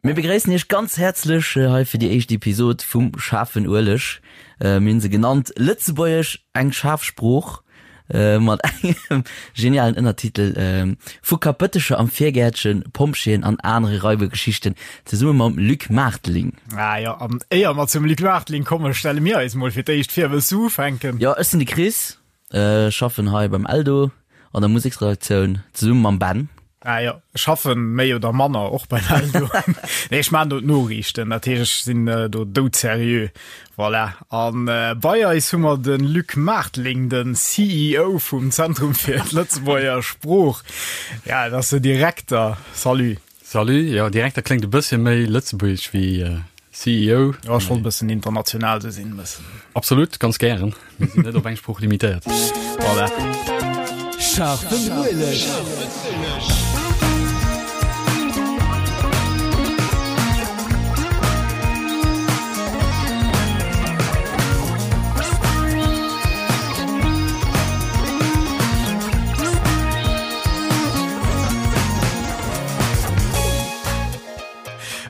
Mir begréissen iech ganz häerzlech hei fir déi éischt Episod vum Schaarfen Ueleg. Mir hunn se genannt Lëtzebuergesch, eng schaarf Sprooch, mat engem genialen Ënnertitel Vu Kapëttecher am Virgäertchen, Pompjeeën an anere Raibergeschichten, zesumme mam Luc Maarteling. Ah jo, an éier mer zum Luc Maarteling kommen, stelle mir eis mol fir d'éischt vir. Wëlls du ufänken? Jo, ech sinn de Chris. Ech schaffen hei beim Eldo an der Museksredaktioun zesumme mam Ben. Ah jo, ech schaffen méi oder manner och beim Eldo. Nee, ech maachen do d'Noriichten, dat heescht ech sinn do doudserieux. Voilà. An bei eis hu mer de Luc Maarteling, de CEO vum Zentrum fir d'Lëtzebuerger Sprooch. Ja, dat ass de Direkter. Salut. Salut, jo Direkter kléngt e bëssche méi lëtzebuergesch wéi CEO. Jo, ech wollt e bëssen international sou sinn, e bëssen. Absolut, ganz gären. Mir sinn net op eng Sprooch limitéiert. Voilà. Scharfen Ueleg.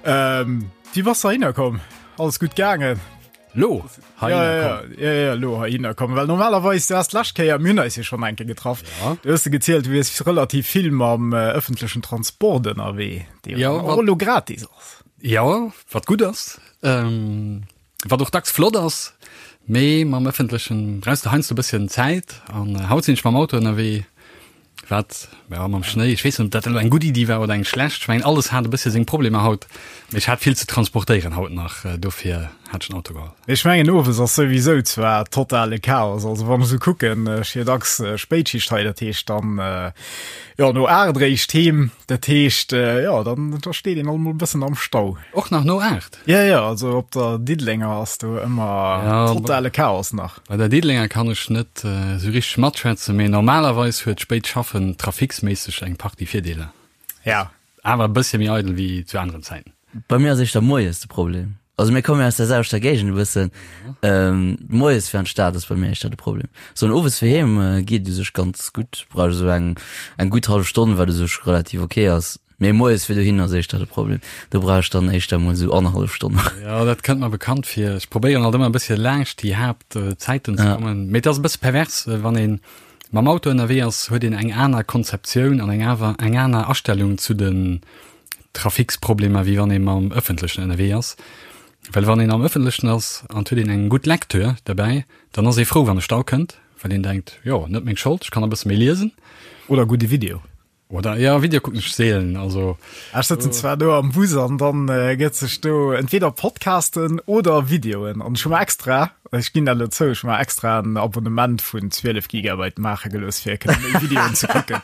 Ähm, Wéi bass de heihinner komm? Alles gutt gaangen? Lo heihinner ja, ja, komm. Ja, ja, lo heihinner komm. Well normalerweis, du hast d'lescht Kéier, mir hunn eis jo schonn eng Kéier getraff, ja. du hues de gezielt, du wiers relativ vill mam äh, ëffentlechen Transport ënnerwee, dee ja, och lo gratis ass. Ja, wat gutt ass. Ähm, wat och dacks flott ass, mee mam ëffentlechen brauchs de heiansdo e bësschen Zäit an haut sinn ech mam Auto ënnerwee. Wat, jo, mam Schnéi, ech weess net, ob dat elo eng gutt Iddi war oder eng schlecht. Ech mengen, alles hat e bëssche seng Problemer haut, mee ech hat vill ze transportéieren haut nach, dofir hat ech den Auto geholl. Ech mengen, owes ass souwisou zwar totale Chaos. Also wann ech esou kucken, ech hu jo dacks Spéitschicht hei, dat heescht dann, jo, no 8 eréischt heem. Dat heescht, jo, dann da steet een alt mol e bëssen am Stau. Och nach no 8? Ja, ja, also op der Diddelenger ass do ëmmer ja, totale Chaos nach. Bei der Diddelenger kann ech net äh, sou richteg matschwätzen, mee normalerweis huet spéit Schaffen trafiksméisseg eng Partie Virdeeler. Ja. Awer e bëssche méi eidel wéi zu aneren Zäiten. Bei mir ass éischter moies de Problem. Also mir kommen jo aus der selwechter Géigend e bëssen. Ähm, moies fir an d'Stad ass bei mir éischter de Problem. Sou an owes fir heem äh, geet u sech ganz gutt. Brauch ech esou eng, eng gutt hallef Stonn, wat u sech relativ ok ass. Mee moies fir dohin ass éischter de Problem. Do brauch ech dann éischter mol esou annerhallef Stonn. Jo, dat kënnt mer bekannt vir. Ech probéieren alt ëmmer e bëssche laanscht déi Haaptzäiten ze kommen. Mee et ass e bësse pervers, wann ee mam Auto ënnerwee ass, huet een eng aner Konzeptioun an eng awer eng aner Astellung zu den Traficsproblemer, wéi wann ee mam Ëffentlechen ënnerwee ass. Well wann een am Ëffentlechen ass an et huet een eng gutt Lecture derbäi, dann ass ee frou, wann e Stau kënnt, well een denkt, jo, net meng Schold, ech kann e bësse méi liesen. Oder gudde Video. Oder ja, Video kucken ech seelen, also. Ech sëtzen zwar do am Bus an dann gëtt sech do entweder Podcasten oder Videoen an ech hu mer extra, ech ginn dat elo zou, ech hu mer extra en Abonnement vun 12 Gigabyte maache gelooss fir kënne méi Videoen ze kucken.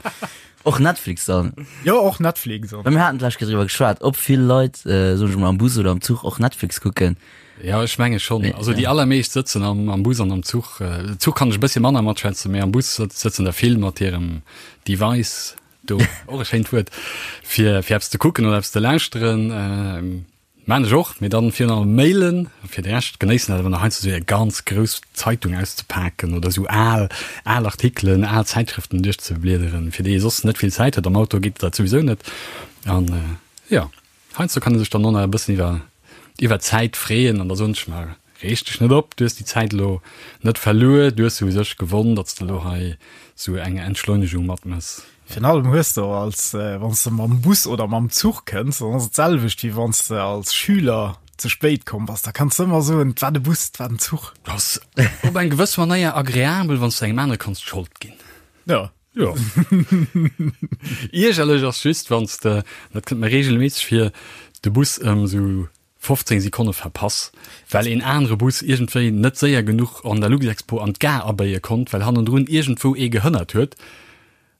Och Netflix dann? Jo, och Netflix. Well mir haten d'lescht Kéier driwwer geschwat, ob vill Leit, soen ech mol, am Bus oder am Zuch och Netflix kucken. Ja, ech menge schonn. Also déi allermeescht sëtzen am, am Bus an am Zuch. Zuch kann ech e bëssche manner matschwätzen, mee am Bus sëtzen der vill mat hirem Device do, och e schéint Wuert, fir, fir eppes ze kucken oder eppes ze lauschteren. Maan ech och, mee dann virun allem mailen. Fir de Rescht genéissen dat awer nach heiansdo esou eng ganz grouss Zeitung auszepaken oder esou al, al Artikelen, al Zäitschrëften duerchzebliederen, fir déi ee soss net vill Zäit huet. Am Auto geet dat souwisou net. An jo. Heiansdo kann ee sech dann och nach e bëssen iwwer iwwer d'Zäit freeën an da soen ech mer, Reeg dech net op, du hues déi Zäit elo net verluer, du hues se u sech gewonn, datt s de elo hei sou eng Entschleunegung matmëss. Virun allem hues de och als, wann s de mam Bus oder mam Zuch kënns, dann ass et d'selwecht wéi wann s de als Schüler ze spéit komm bass, da kanns de ëmmer soen, et war de Bus, et war den Zuch. Ass op eng gewëss Manéier agreabel, wann s de engem anere kanns d'Schold ginn. Jo. Jo. Iergerlech ass just, wann s de, dat kënnt mer reegelméisseg vir, de Bus ëm esou 15 Sekonne verpass, well een anere Bus iergendwéi net séier genuch an der Luxexpo an d'Gare abéie konnt, well hannendrun iergendwou ee gehënnert huet.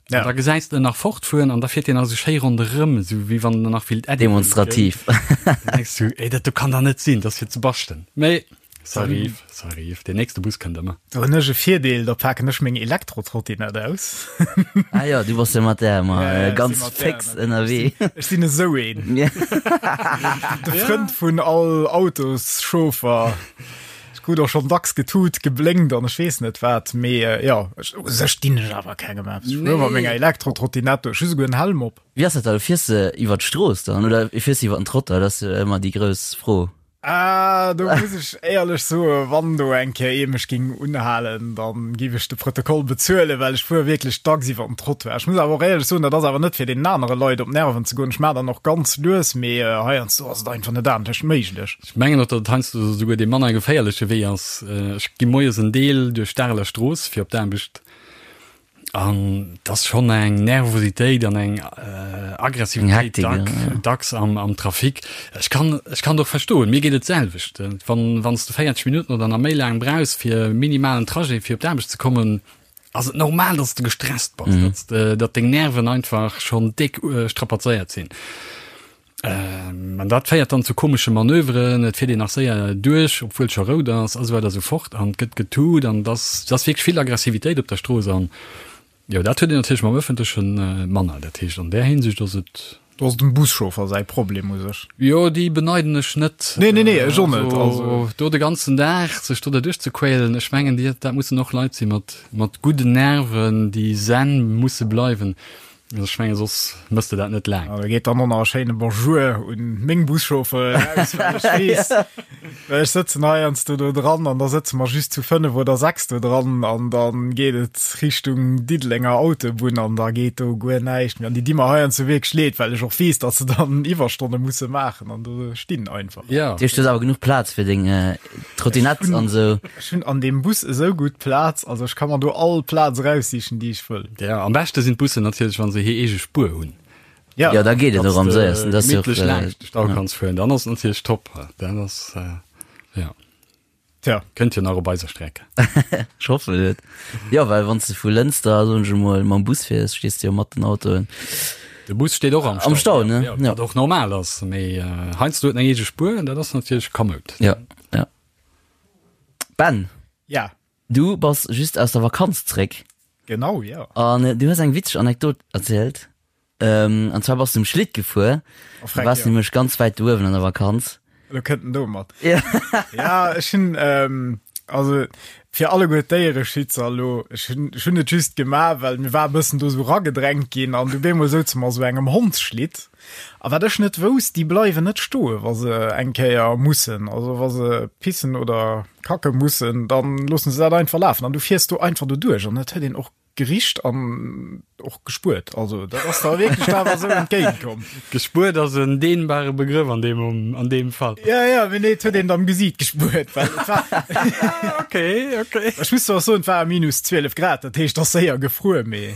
An da gesäis de en nach fortfueren an da fiert deen nach esou schéi ronderëm, esou wéi wann en nach willt Äddi Demonstrativ. Dann denks du, Ey, dat do kann dach net sinn, dat ass fir ze baschten. Mee Ça arrive, ça arrive. Deen nächste Bus kënnt ëmmer. Do hunn ech e Virdeel, da paken ech meng Elektrotrottinett aus. Ah jo, du bass jo mat där ëmmer ja, ja, ganz fix ënnerwee. Ech sinn esou een. De Frënd vun all Autoschauffer. krut och schonn dacks getut, geblénkt an ech weess net wat, mee jo, u sech dinn ech awer kengem eppes. Ech fuere mat menger Elektro-Trottinette, ech hu souguer en Helm op. Wéi ass dat da, fiers de iwwer d'Strooss dann oder fiers de iwwer den Trottoir? Dat ass jo ëmmer déi grouss Fro. Ah, do muss ech éierlech soen, wann do eng Kéier ee mech géing unhalen, da géif ech de Protokoll bezuelen, well ech fuere wierklech dacks iwwer den Trottoir. Ech muss awer och éierlech soen, dat ass awer net fir deenen anere Leit op d'Nerven ze goen. Ech maachen dann och ganz lues, mee heiansdo ass et einfach net anescht méiglech. Ech mengen och, datt et heiansdo esouguer dee manner geféierleche Wee ass. Ech gi moies en Deel duerch d'Areler Strooss fir op d'Aarbecht an et ass schonn eng Nervositéit an eng Aggressivitéit dacks am Trafic. Ech kann ech kann et och verstoen, mir geet et d'selwecht. Wann wann s de 40 Minutten oder nach méi laang brauchs fir e minimalen Trajet fir op d'Aarbecht ze kommen, ass et normal, datt s de gestresst bass, datt datt deng Nerven einfach schonn déck strapazéiert sinn. An dat féiert dann zu komesche Manöveren, et fiert een nach séier duerch, obwuel scho rout ass a sou weider a sou fort an et gëtt getut an et ass, et ass wierklech vill Aggressivitéit op der Strooss an jo, dat huet een natierlech mam Ëffentleche manner. Dat heescht, an där Hinsicht ass et. Do ass dem Buschauffer säi Problem u sech. Jo, déi beneiden ech net. Nee, nee, nee, ech och net. Also do de ganzen Dag sech do derduerch ze quälen, ech mengen, déi, dat mussen och Leit si mat, mat gudden Nerven, déi zen musse bleiwen. Also ech menge soss mëss de dat net laang. Da geet dann och nach e schéine Bonjour un meng Buschauffeuren eraus, well ech weess, well ech sëtzen heiansdo do dran an da sëtze mer just zu 5 oder 6 do dran an da geet et Richtung Diddelenger Autobunn an da geet do guer näischt méi. An déi di mer heiansdo wierklech leed, well ech och weess, datt se dann Iwwerstonne musse maachen an do stinn einfach. Ja. Dat heescht, du hues awer genuch Plaz fir deng Trottinett an esou. Ech hunn an deem Bus esou gutt Plaz, also ech ka mer do all Plaz eraussichen, déi ech wëll. Ja, am beschte sinn d'Bussen natierlech, wa se hir eege Spuer hunn. Ja, ja da geet et och am séiersten. Dat ass jo och laanscht de Stau kanns fueren, dann ass et natierlech top. Dat ass ja. Tja. Kënnt jo nach op eiser Streck. Ech hoffen et. Jo, well wann s de vu Lënster, soen ech emol, mam Bus fiers, stees de jo mat den Autoen. De Bus steet och am Stau. Am Stau, ne? Ja, wat och normal ass, mee heiansdo huet en eng eege Spuer, dat ass natierlech kamoud. Ja, ja. Ben. Ja. Du bass just aus der Vakanz zréck. Genau, ja. An du hues eng witzeg Anekdot erzielt. Ähm, an zwar bass du um Schlitt gefuer. Oh, du warst ja. nämlech ganz wäit do uewen an der Vakanz. Lo kënnt en domat. Ja. ja, ech hunn, ähm, also fir alleguer d'Déiereschützer elo, ech hunn, ech hunn et just gemaach, well mir war e bëssen do sou ragedrängt ginn an du bemol souze mer sou engem Hondsschlitt. A wat ech net wousst, déi bleiwen net stoe wa se eng Kéier mussen, also wa se pissen oder kacke mussen, dann loossen se dat einfach lafen an du fiers do einfach doduerch an et huet een och gericht an och gespuert. Also dat ass der wierklech awer esou entgéint komm. Gespuert ass en dehnbare Begrëff an deem, an deem Fall. Ja, ja, mee nee, et huet een am Gesiit gespuert, well et war Okay, okay. Ech muss zwar soen, et war minus 12 Grad, dat heescht, et ass séier gefruer, mee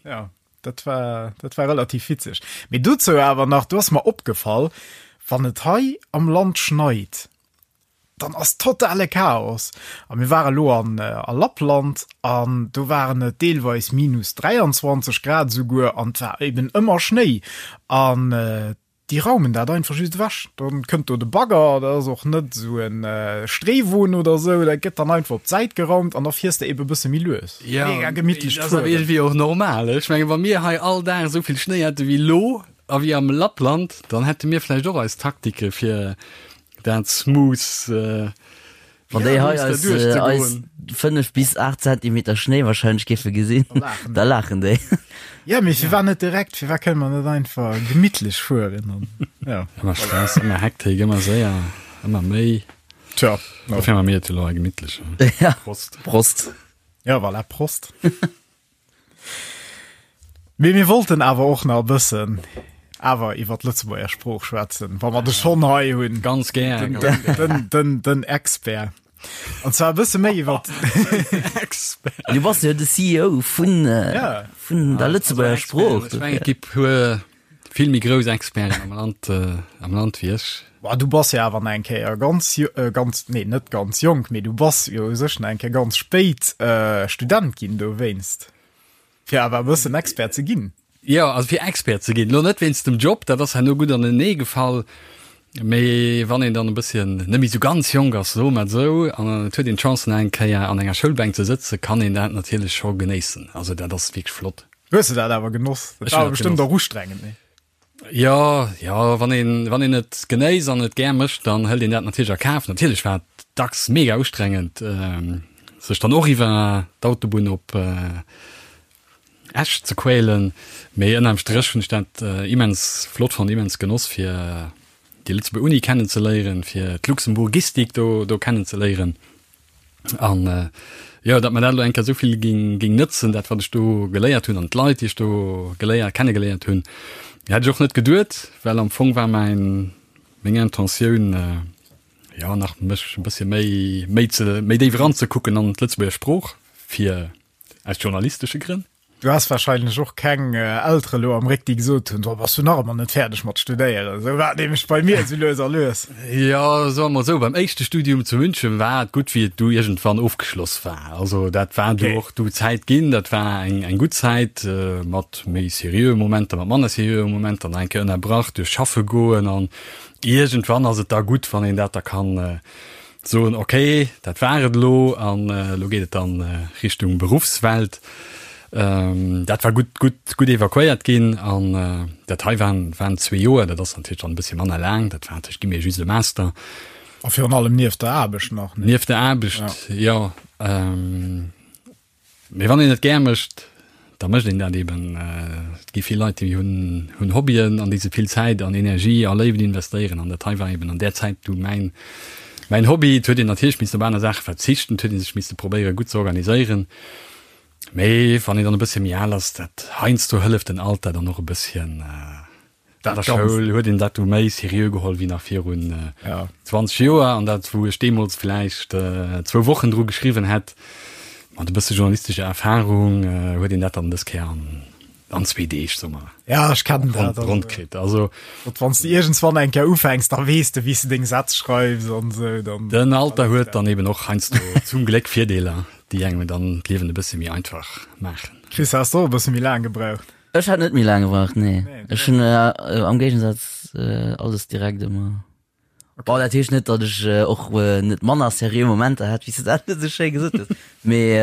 ja. Dat war, dat war relativ witzeg. Mee dozou awer nach, do ass mer opgefall, wann et hei am Land schneit, dann ass totale Chaos. A mir ware lo an, äh, a Lappland an do waren et deelweis minus 23 Grad esouguer an et war eben ëmmer Schnéi. An äh, Déi raumen dat einfach just ewech. Dann kënnt do de Bagger, dat ass och net esou en Streewon oder esou, dat gëtt dann einfach op d'Säit geraumt an da fiers de ebe bësse méi lues. Ja, Mega gemittlecht dat ass awer iergendwéi och normal. Ech menge wa mir hei all Dag esou vill Schnéi hätte wéi elo a wéi am Lappland, dann hätte mir vläicht och eis Taktike fir dat smooth Wann déi hei eis, eis 5 bis 8 Zentimeter Schnéi wahrscheinlech géife gesinn, da laachen déi. Ja, mee firwat net direkt? Firwat kënne mer net einfach gemittlech fueren? An, ja. Ëmmer Stress, ëmmer Hektik, ëmmer séier, ëmmer méi. Tja. Dofir maache mir et elo hei gemittlech. Ja. Prost. Prost. Ja, voilà, Prost. Mee mir wollten awer och nach e bëssen awer iwwer d'Lëtzebuerger Sprooch schwätzen, wa mer de schonn hei hunn. Ganz gär. Den, den, den, den, den Expert. An zwar e bësse méi iwwer Expert. Du bass jo de CEO vun, äh, Ja. vun der Lëtzebuerger Sprooch. Ech mengen, et gi puer vill méi grouss Experten am Land, äh, am Land wéi ech. Boah, du bass jo awer nach eng Kéier ganz, äh, ganz, nee, net ganz jonk, mee du bass jo u sech nach eng Kéier ganz spéit äh, Student ginn dowéinst. Fir awer e bëssen Expert ze ginn. Jo, also fir Expert ze ginn, elo net wéinst dem Job, dat ass herno gutt anenee gefall, mee wann een dann e bësschen net méi esou ganz jonk ass, soe mer et esou, an et huet een d'Chance nach eng Kéier an enger Schoulbänk ze sëtzen, kann een dat natierlech scho genéissen. Also dat ass wierklech flott. Hues de dat awer genoss? Dat Ech war hunn dat bestëmmt genoss. och ustrengend, nee? Jo, jo, wann een, wann een et genéisst an et gär mécht, dann hëlt een dat natierlech a Kaf. Natierlech war et dacks mega ustrengend, sech dann och iwwer d'Autobunn op Esch ze quälen, mee ënnerm Stréch hunn ech dat immens flott fonnt, immens genoss, fir déi Lëtzebuerger Uni kennenzeléieren, fir d'Luxemburgistik do, do kennenzeléieren. An jo, datt mer dat elo eng Kéier esou vill géing, géing nëtzen, dat wat ech do geléiert hunn an d'Leit, déi ech do geléiert, kennegeléiert hunn, hätt ech och net geduet, well am Fong war mäin, meng Intentioun, jo nach mech e bëssche méi, méi ze, méi déif eranzekucken an d'Lëtzebuerger Sprooch, fir aus journalistesche Grënn. Du has wahrscheinlech och keng Eltere lo am Réck, déi gesot hunn, so bass du nach ëmmer net fäerdeg mat studéieren. Esou war et nämlech bei mir esou lues a lues. Jo, soe mer esou, beim éischte Studium zu München war et gutt, wéi et du iergendwann ofgeschloss war. Also dat war du och du Zäit ginn, dat war eng eng gutt Zäit mat méi seriöe Momenter, mat manner seriöe Momenter, nach eng Kéier ënnerbrach duerch schaffe goen an iergendwann ass et da gutt, wann een dat da kann Soen, ok, dat war et elo an elo geet et dann Richtung Beruffswelt. Dat war gutt, gutt, gutt evakuéiert ginn an dat hei waren, waren zwee Joer. Dat ass natierlech dann e bëssche manner laang. Dat war natierlech, gi mir just e Master. A virun allem nieft der Aarbecht nach, ne? Nieft der Aarbecht, jo. Mee wann een et gär mécht, da mécht een dat eben. Et gi vill Leit, déi hunn hunn Hobbyen, an déi se vill Zäit an Energie a Léift investéieren. An dat hei war eben an där Zäit du mäin mäin Hobby. Et huet een natierlech missen op aner Saache verzichten, et huet ee sech misse probéiere gutt ze organiséieren. Mee wann een dann e bëssche méi al ass, dat heiansdo hëlleft den Alter dann och e bësschen. An der Schoul huet een dat du méi seriö geholl wéi nach virun 20 Joer. An dat, wou ech deemools vläicht zwou Wochen dru geschriwwen hätt, mat e bësse journalistescher Erfarung, huet een dat dann dës Kéier an zwee Deeg, soe mer, Ja, ech kennen dat. ronn kritt. Also. Wann s de iergendswann eng Kéier ufänks, da weess de, wéi s de deng Sätz schreifs an esou. Dann. Den Alter huet dann eben och heiansdo zum Gléck Virdeeler, déi engem dann d'Liewen e bësse méi einfach maachen. Chris, has de och e bësse méi laang gebraucht? Ech hat net méi laang gebraucht, nee. Ech hunn am Géigensaz alles direkt ëmmer. Bon, dat heescht net, datt ech och net manner seriö Momenter hat, wéi s de dat esou schéi gesot hues, mee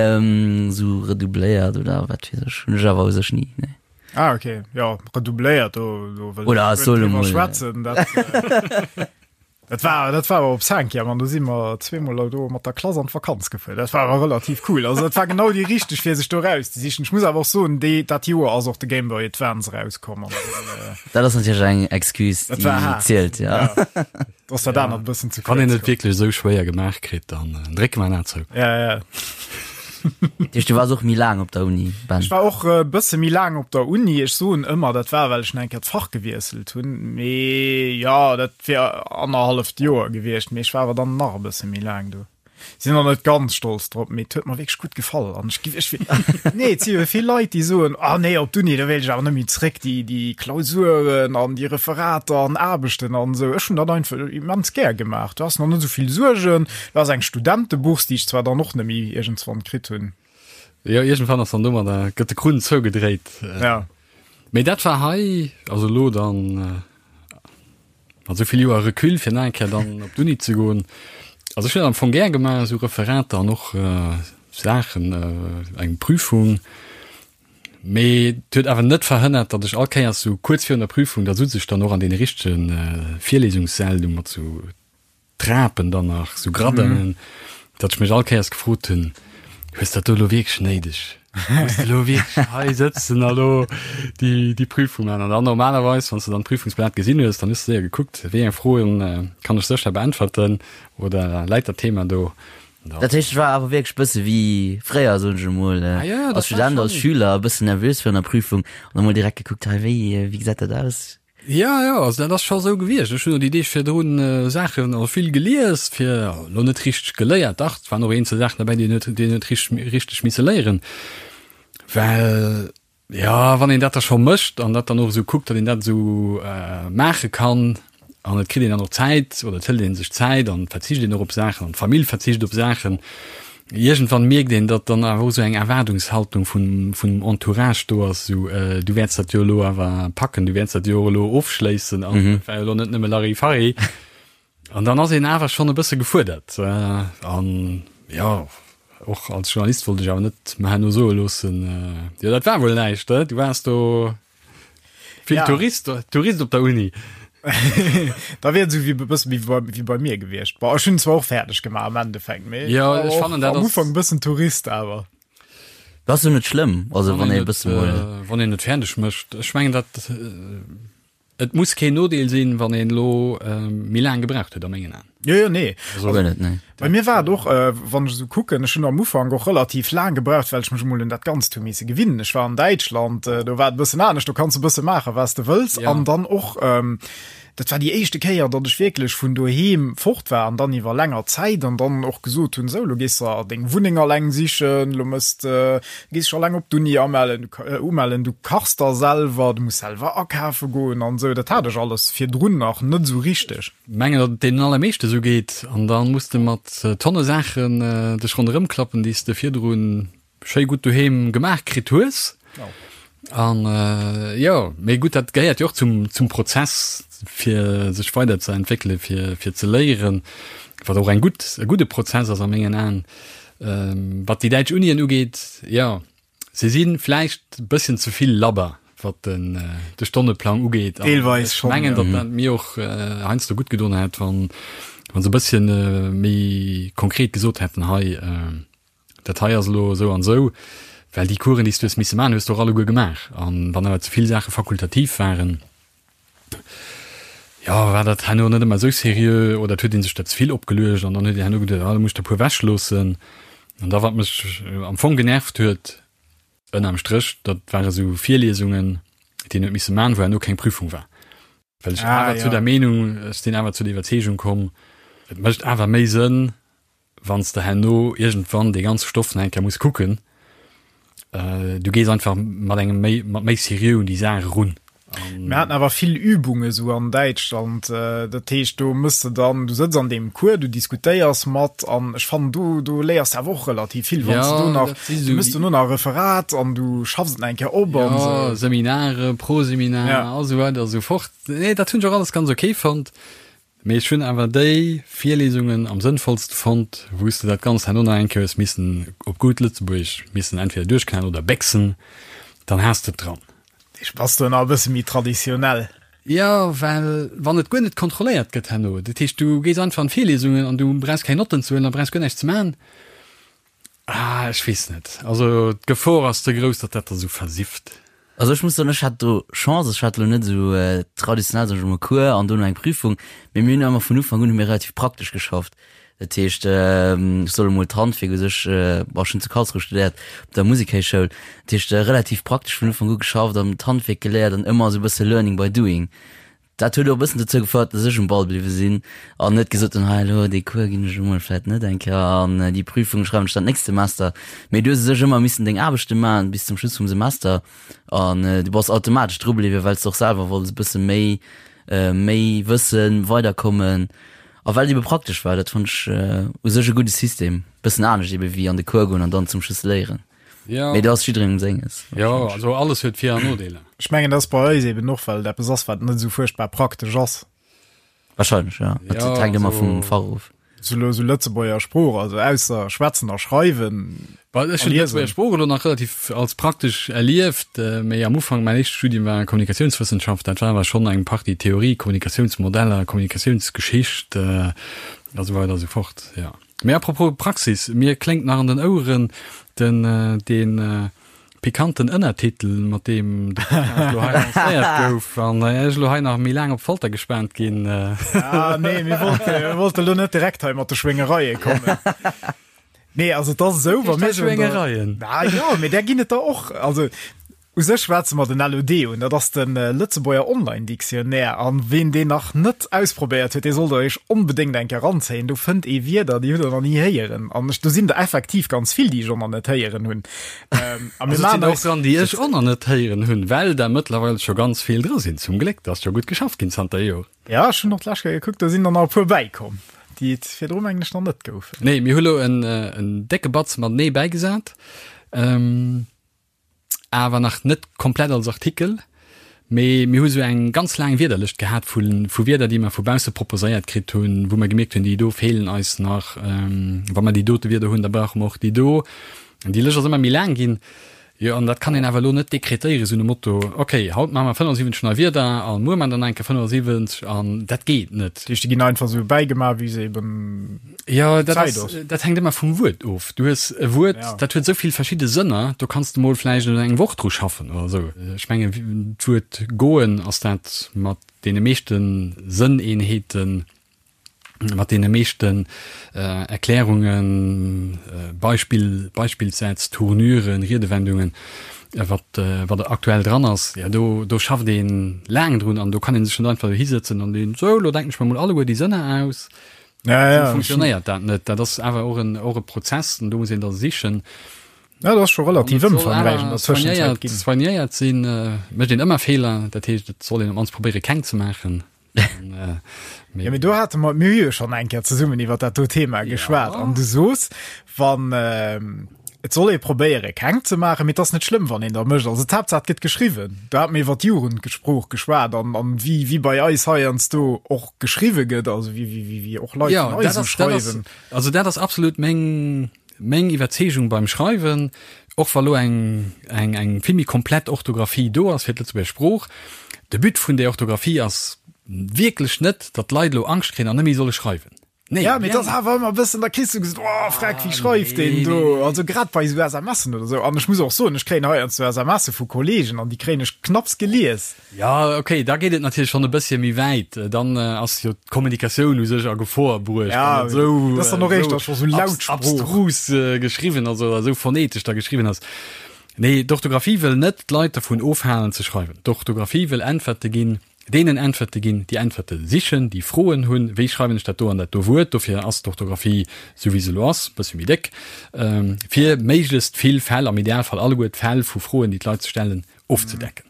esou redoubléiert oder wat weess ech, hunn ech awer u sech ni, nee. Ah, okay, jo, redoubléiert, do, do wëll ech guer net driwwer schwätzen, dat. Dat war, dat war awer op Cinquième an do si mer zweemol do mat der Klass an d'Vakanz gefuer. Dat war awer relativ cool. Also dat war genau déi richteg fir sech do rauszesichen. Ech muss awer och soen, déi, dat Joer ass och de Game Boy Advance erauskomm an dann, Dat ass natierlech eng Excuse, Dat war déi haart. zielt, ja. Ja. Do ass dat anert e bëssen ze Wann kuerz een et komm. wierklech esou schwéier gemaach kritt, dann drécke mer en A zou. Ja, ja. Dat heescht, du waars och méi laang op der Uni, Ben? Ech war och e bësse méi laang op der Uni. Ech soen ëmmer, dat war, well ech nach eng Kéier d'Fach gewiesselt hunn. Mee jo, dat wier annerhalleft Joer gewiescht, mee ech war awer dann nach e bësse méi laang do. Sinn och net ganz stolz drop, mee et huet mer wierklech gutt gefall. An ech gi, ech, nee, et si jo vill Leit, déi soen, ah nee, op d'Uni, do wéilt ech awer net méi zréck, déi, déi Klausuren an déi Referater an Aarbechten an esou. Ech hunn dat einfach immens gär gemaach. Du has nach net esou vill Suergen. Du has eng Studentebourse, déi ech zwar dann och net méi iergendswann kritt hunn. Jo, iergendwann ass dann domadder, gëtt de Krunn zougedréit. Ja. Mee dat war hei, also elo dann, Mat esou vill Joer Recul fir nach eng Kéier dann op d'Uni ze goen. Also ech hunn dat am Fong gär gemaach, esou Referater an och Saachen, eng Prüfung. Mee et huet awer net verhënnert, datt ech all Kéiers esou kuerz virun der Prüfung, da sutz ech dann och an deene richtege Virlesungssäll do mat esou Trapen dann nach, sou Gradinen, datt ech mech all Kéiers gefrot hunn, Hues dat do elo wierklech néideg? Muss de elo wierklech hei sëtzen a lo déi, déi Prüfung maachen? An dann normalerweis, wann s de dann d'Prüfungsblat gesinn hues, dann hues de séier gekuckt, wéi eng Froen kann ech sécher beäntwerten oder läit dat Thema do? Dat heescht, et war awer wierklech bësse wéi fréier, soen ech emol, als Student, als Schüler, e bëssen nervös virun der Prüfung an da mol direkt gekuckt, hei, wéi, wéi gesäit dat aus? Jo, jo, also dat ass scho sou gewiescht. Ech hunn och déi Deeg virdrun Saachen, also vill gelies, fir, elo net richteg geléiert, dach, et waren och eenzel Saachen derbäi, déi een huet, déi een huet richteg, richteg misse léieren, well, jo, wann een dat da scho mécht an dat dann och esou kuckt, datt een dat esou maache kann an et kritt een dann och Zäit oder et hëlt ee sech Zäit an et verzicht een och op Saachen an d'Famill verzicht op Saachen, Iergendwann mierkt een, datt dann awer och esou eng Erwaardungshaltung vun vum Entourage do ass, esou, du wäerts dat jo elo awer packen, du wäerts dat jo och elo ofschléissen an et war jo elo net nëmme Larifari. An dann ass een awer schonn e bësse gefuerdert. An jo, och als Journalist wollt ech awer net mer herno soe loossen, jo dat war wuel näischt, du waars do. Vill ja. Tourist, Tourist op der Uni. da wier et esou wéi e bëssen wéi bei, wéi bei mir gewiescht. Bon, ech hunn zwar och fäerdeg gemaach am Endeffekt, mee Ja, ech fannen dat am Ufank e bëssen Tourist awer. Dat ass jo net schlëmm, also wann ee e bësse mol. Wann een et fäerdeg mécht. Ech mengen dat et muss keen Nodeel sinn, wann een elo méi laang gebraucht huet a mengen Aen. Jo, jo, nee. Also, guer net, nee. Bei mir war et och, äh, wann ech esou kucken, ech hunn am Ufank och relativ laang gebraucht, well ech mech emol un dat Ganzt hu misse gewinnen. Ech war an Däitschland, äh, do war et e bëssen anescht, do kanns de e bësse maachen, wat s de wëlls. Ja. An dann och, ähm, dat war déi éischte Kéier, datt ech wierklech vun doheem fort war an dann iwwer länger Zäit an dann och gesot hunn, sou, lo gees de deng Wunneng alleng sichen, lo mëss de, gees dech alleng op d'Uni amellen, du, äh, umellen, du kachs da selwer, du muss selwer akafe goen an esou. Dat hat ech alles virdrun nach net esou richteg. Mengen, datt et deenen allermeeschte sou geet, an da muss de mat Tonne Saachen dech ronderëm klappen, déi s de virdru schéi gutt doheem gemaach kritt hues. An jo, mee gutt, dat gehéiert jo och zum, zum Prozess, fir sech weider ze entwéckelen, fir, fir ze léieren, wat och eng gutt, e gudde Prozess ass a mengen Aen. Wat déi däitsch Unien ugeet, jo, Se si vläicht e bësschen ze vill labber, wat den de Stonneplang ugeet. An Deelweis ech schonn, mengen, ja. datt dat mir och heiansdo gutt gedoen hätt, wann wann se e bësschen méi konkret gesot hätten, hei, dat hei ass elo esou an esou, well déi Coursen, déi s du hues misse maachen, hues de och alleguer gemaach. An wann awer ze vill Saache fakultativ waren, jo, war dat herno net ëmmer esou seriö oder et huet ee sech dat ze vill opgeluecht an dann huet een herno geduecht, ah, da muss ech der e puer ewechloossen. An da wat mech am Fong genervt huet, ënnerm Stréch, dat ware sou Virliesungen, déi een huet misse man, wou herno keng Prüfung war. Well ech Ah, awer zu ja. der Meenung, ech sinn awer zu der Iwwerzeegung komm, et mécht awer méi Sënn, wann s de herno iergendwann dee ganze Stoff nach eng Kéier muss kucken, du gees einfach mat engem méi, mat méi Seriö un déi Saach erun. Mir haten awer vill Übunge sou an Däitschland, dat heescht do mëss de dann, du sëtz an deem Cours, du diskutéiers mat an ech fannen do, do léiers de awer och relativ vill, wann s de do nach, du mëss dono nach e Referat an du schaffs et nach eng Kéier op an Jo, esou. Seminare, Proseminar a sou weider a sou fort. Nee, dat hunn ech och alles ganz ok fonnt. Mee ech hunn awer déi Virlesungen am sënnvollste fonnt, wou s de dat Ganzt herno nach eng Kéier hues missen op gutt Lëtzebuergesch missen entweder duerchknallen oder béchsen, dann has de et dran. Ech bass do nach e bësse méi traditionell. Jo, well wann et guer net kontrolléiert gëtt herno, dat heescht du gees einfach an d'Virlesungen an du brauchs keng Notten ze huelen a brauchs guer näischt ze maachen, Ah, ech weess net. Also d'Gefor ass ze grouss, datt dat da sou versifft. Also ech muss soen, ech hat do Chance, ech hat elo net esou traditionell, sag ech emol, Cours an dono eng Prüfung, mee mir hunn ëmmer vun Ufank un hu mir relativ praktesch geschafft. Dat heescht, ech soll emol d'Handwierk u sech, bon, ech hunn zu Karlsruhe studéiert, op der Musikhéichschoul, dat heescht relativ praktesch vun Ufank u geschafft an d'Handwierk geléiert an ëmmer esou e bësse Learning by doing. Dat huet och e bëssen dozou gefouert, dass ech um Ball bliwwe sinn an net gesot hunn, hei elo dee Cours ginn ech emol vläit net eng Kéier an déi Prüfung schreiwen ech dann d'nächst Semester. Mee du hues u sech ëmmer missen deng Aarbechte maachen bis zum Schluss vum Semester an du bass automatesch dru bliwwen, well s de och selwer wollts e bësse méi, méi wëssen, weiderkommen a well et ebe praktesch war. Dat fonnt ech u sech e gudde System, bëssen anescht ebe wéi an de Cours goen an dann zum Schluss léieren. Ja. Mee do ass jidderengem senges. Jo, also alles huet Vir an Nodeeler. Ech mengen, dat ass bei eis eben och, well et eppes ass, wat net esou fuerchtbar praktesch ass. Wahrscheinlech, ja. Dat Ja, hänkt ëmmer also- vum Fach of. Sou elo sou Lëtzebuerger Sprooch, also ausser schwätzen a schreiwen. Well ech A hunn liesen. d'Lëtzebuerger Sprooch elo nach relativ als praktesch erlieft, mee am Ufank, mäin éischte Studium war Kommunikatiounswëssenschaft, dat war awer schonn eng Partie Theorie, Kommunikatiounsmodeller, Kommunikatiounsgeschicht a sou weider a sou fort, jo. Mee apropos Praxis, mir kléngt nach an den Oueren den dee pikanten Ënnertitel, mat deem de Podcast elo hei lancéiert gouf an ech elo hei nach méi laang op d'Folter gespaant ginn. Ah nee, mir wollte, mir wollte elo net direkt hei mat de Schwéngereie kommen. Nee, also et ass esou, wa mir Schwéngereien? Ah jo, mee där ginn et der och. Also U sech schwätze mer den LOD un, dat ass de Lëtzebuerger Online Dictionnaire. An ween deen nach net ausprobéiert huet, dee sollt der iech onbedéngt eng Kéier eranzéien. Do fënnt ee Wierder, déi hutt der nach ni héieren. An ech, do sinn der effektiv ganz vill, déi ech och nach net héieren hunn. A mir maachen eis. Och dran, déi ech och nach net héieren hunn, well der mëttlerweil scho ganz vill dra sinn. Zum Gléck, dat ass scho gutt geschafft ginn zanter Joren. Jo, ech hunn och d'lescht Kéier gekuckt, do sinn der nach e puer bäikomm, déi et virdru mengen ech nach net goufen. Nee, mir hu lo en décke Batz matenee bäigesat. Awer nach net komplett als Artikel, mee mir hu sou eng ganz laang Wierderlëscht gehat vu vu Wierder, déi mer vu bausse proposéiert kritt hunn, wou mer gemierkt hunn, déi do feelen eis nach, wa mer déi dote Wierder hunn, da brauche mer och déi do. An déi Lëscht ass ëmmer méi laang ginn. Jo, an dat kann een awer elo net dekretéieren, esou nom Motto, okay, haut maache mer 75 nei Wierder a muer maache mer dann eng Kéier 75 an dat geet net. Dat heescht, déi ginn einfach esou bäigemaach, wéi se eben Jo, dat ass, dat hänkt ëmmer vum Wuert of. Du hues e Wuert, ja. dat huet esou vill verschidde Sënner, do kanns de mol vläicht eng Woch dru schaffen oder esou. Ech mengen, d'Wuert goen ass dat mat deene meeschte Sënneenheeten, mat deene meeschten Erklärungen, Beispill, Beispillssätz, Tournuren, Riedewendungen, wat, wat aktuell dran ass, jo, do, do schafft ee laang drun an do kann ee sech net einfach dohisëtzen an deen, sou, elo denken ech mer mol alleguer déi Sënner aus. Ja, ja, Esou funktionéiert dat net. Dat ass awer och en, och e Prozess an do muss een da sichen. Ja, dat ass scho relativ ëmfangräich an der Tëschenzäit ginn. Soignéiert sinn, mécht een ëmmer Feeler, dat heescht, et soll een op d'mannst probéiere keng ze maachen. Ja, mee do hate mer, mir hu jo schonn eng Kéier zesummen iwwer dat do Thema geschwat an du soos, wann et soll ee probéiere keng ze maachen, mee et ass net schlëmm, wann een der mécht. Also d'Haaptsaach et gëtt geschriwwen. Do hate mir iwwer d'Jugendsprooch geschwat an an wéi wéi bei eis heiansdo och geschriwwe gëtt, also wéi wéi wéi och Leit vun eis esou schreiwen. Also dat ass absolut meng Meng Iwwerzeegung beim Schreiwen, och wa lo eng eng eng vill méi komplett Orthographie do ass fir d'Lëtzebuerger Sprooch, de But vun där Orthographie ass wierklech net, datt d'Leit elo Angscht kréien an net méi solle schreiwen. Nee, Ja, mee et ass awer ëmmer e bëssen, da kriss du gesot, oh freck, wéi schreift deen do? Also grad bei esou SMSen oder esou. An ech muss och soen, ech kréien heiansdo SMSe vu Kollegen an déi kréien ech knapps gelies. Ja, okay, da geet et natierlech schonn e bësschen méi wäit. Dann ass jo d'Kommunikatioun u sech a Gefor bruecht, Ja, wann et esou, dat ass dann och éischter scho sou laut Sprooch. abstrus geschriwwen ass oder esou phonetesch da geschriwwen ass. Nee, d'Orthografie wëll net d'Leit dervun ofhalen ze schreiwen. D'Orthografie wëll Äntwerte ginn, deenen Äntwerte ginn, déi Äntwerte sichen, déi Froen hunn, wéi schreiwen ech dat do an dat do Wuert. Dofir ass d'Orthografie, esou wéi se elo ass, e bëssche méi déck, fir méiglechst vill Fäll, am Idealfall alleguer d'Fäll vu Froen, déi d'Leit sech stellen, ofzedecken.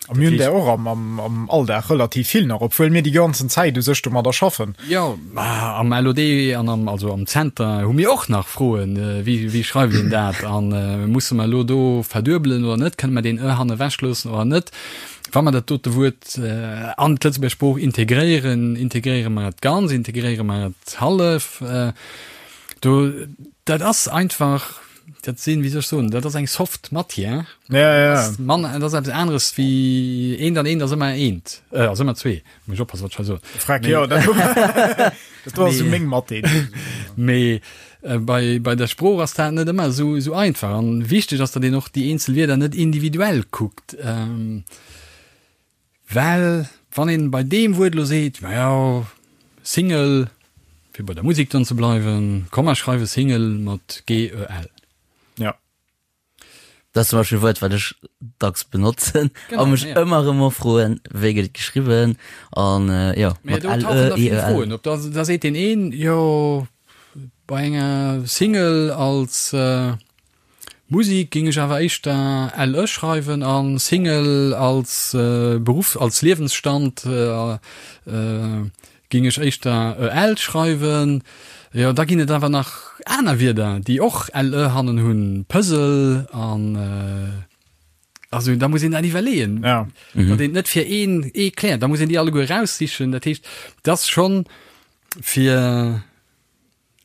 A mir hunn där och am, am Alldag relativ vill nach, obwuel mir déi ganzen Zäit u sech domadder schaffen. Jo, am LOD an am, also am Zenter hu mir och nach Froen, wéi, wéi schreift een dat a musse mer elo do verduebelen oder net, kënne mer deen e hanne ewechloossen oder net? Wa mer dat dote Wuert an d'Lëtzebuerger Sprooch integréieren, integréiere mer et ganz, integréiere mer et hallef? Do, dat ass einfach, Dat sinn, wéi soll ech soen, dat ass eng soft Matière. Ja, ja. Dat ass mann, dat ass eppes aneres wéi eent an eent ass ëmmer eent, äh, ass ëmmer zwee. Muss ech oppassen, wat ech hei soen. Freck, jo, dat dat do ass esou meng Mathé. Mee äh, bei, bei der Sprooch ass dat net ëmmer esou, esou einfach. An wichteg ass, datt een och déi eenzel Wierder net individuell kuckt. Ähm, Well wann een bei deem Wuert elo seet, majo, Single, fir bei der Musek dann ze bleiwen, komm mer schreiwe Single mat g-e-l. Ja. Dat ass zum Beispill e Wuert, wat ech dacks benotzen a mech ëmmer erëm och froen, wéi gëtt et geschriwwen an jo, mat l, e, i, e, l. Op, da seet deen een, jo, bei enger Single als Musik ging ech awer éischter LE schreiwen an Single als Beruff, als Liewensstand ging ech éischter EL schreiwen. Jo, da ginn et awer nach aner Wierder, déi och LE hannen hunn, Puzzle an also da muss een dat iwwerleeën, ja. datt een et net fir een ee kläert, da muss een déi alleguer eraussichen. Dat heescht, et ass schonn fir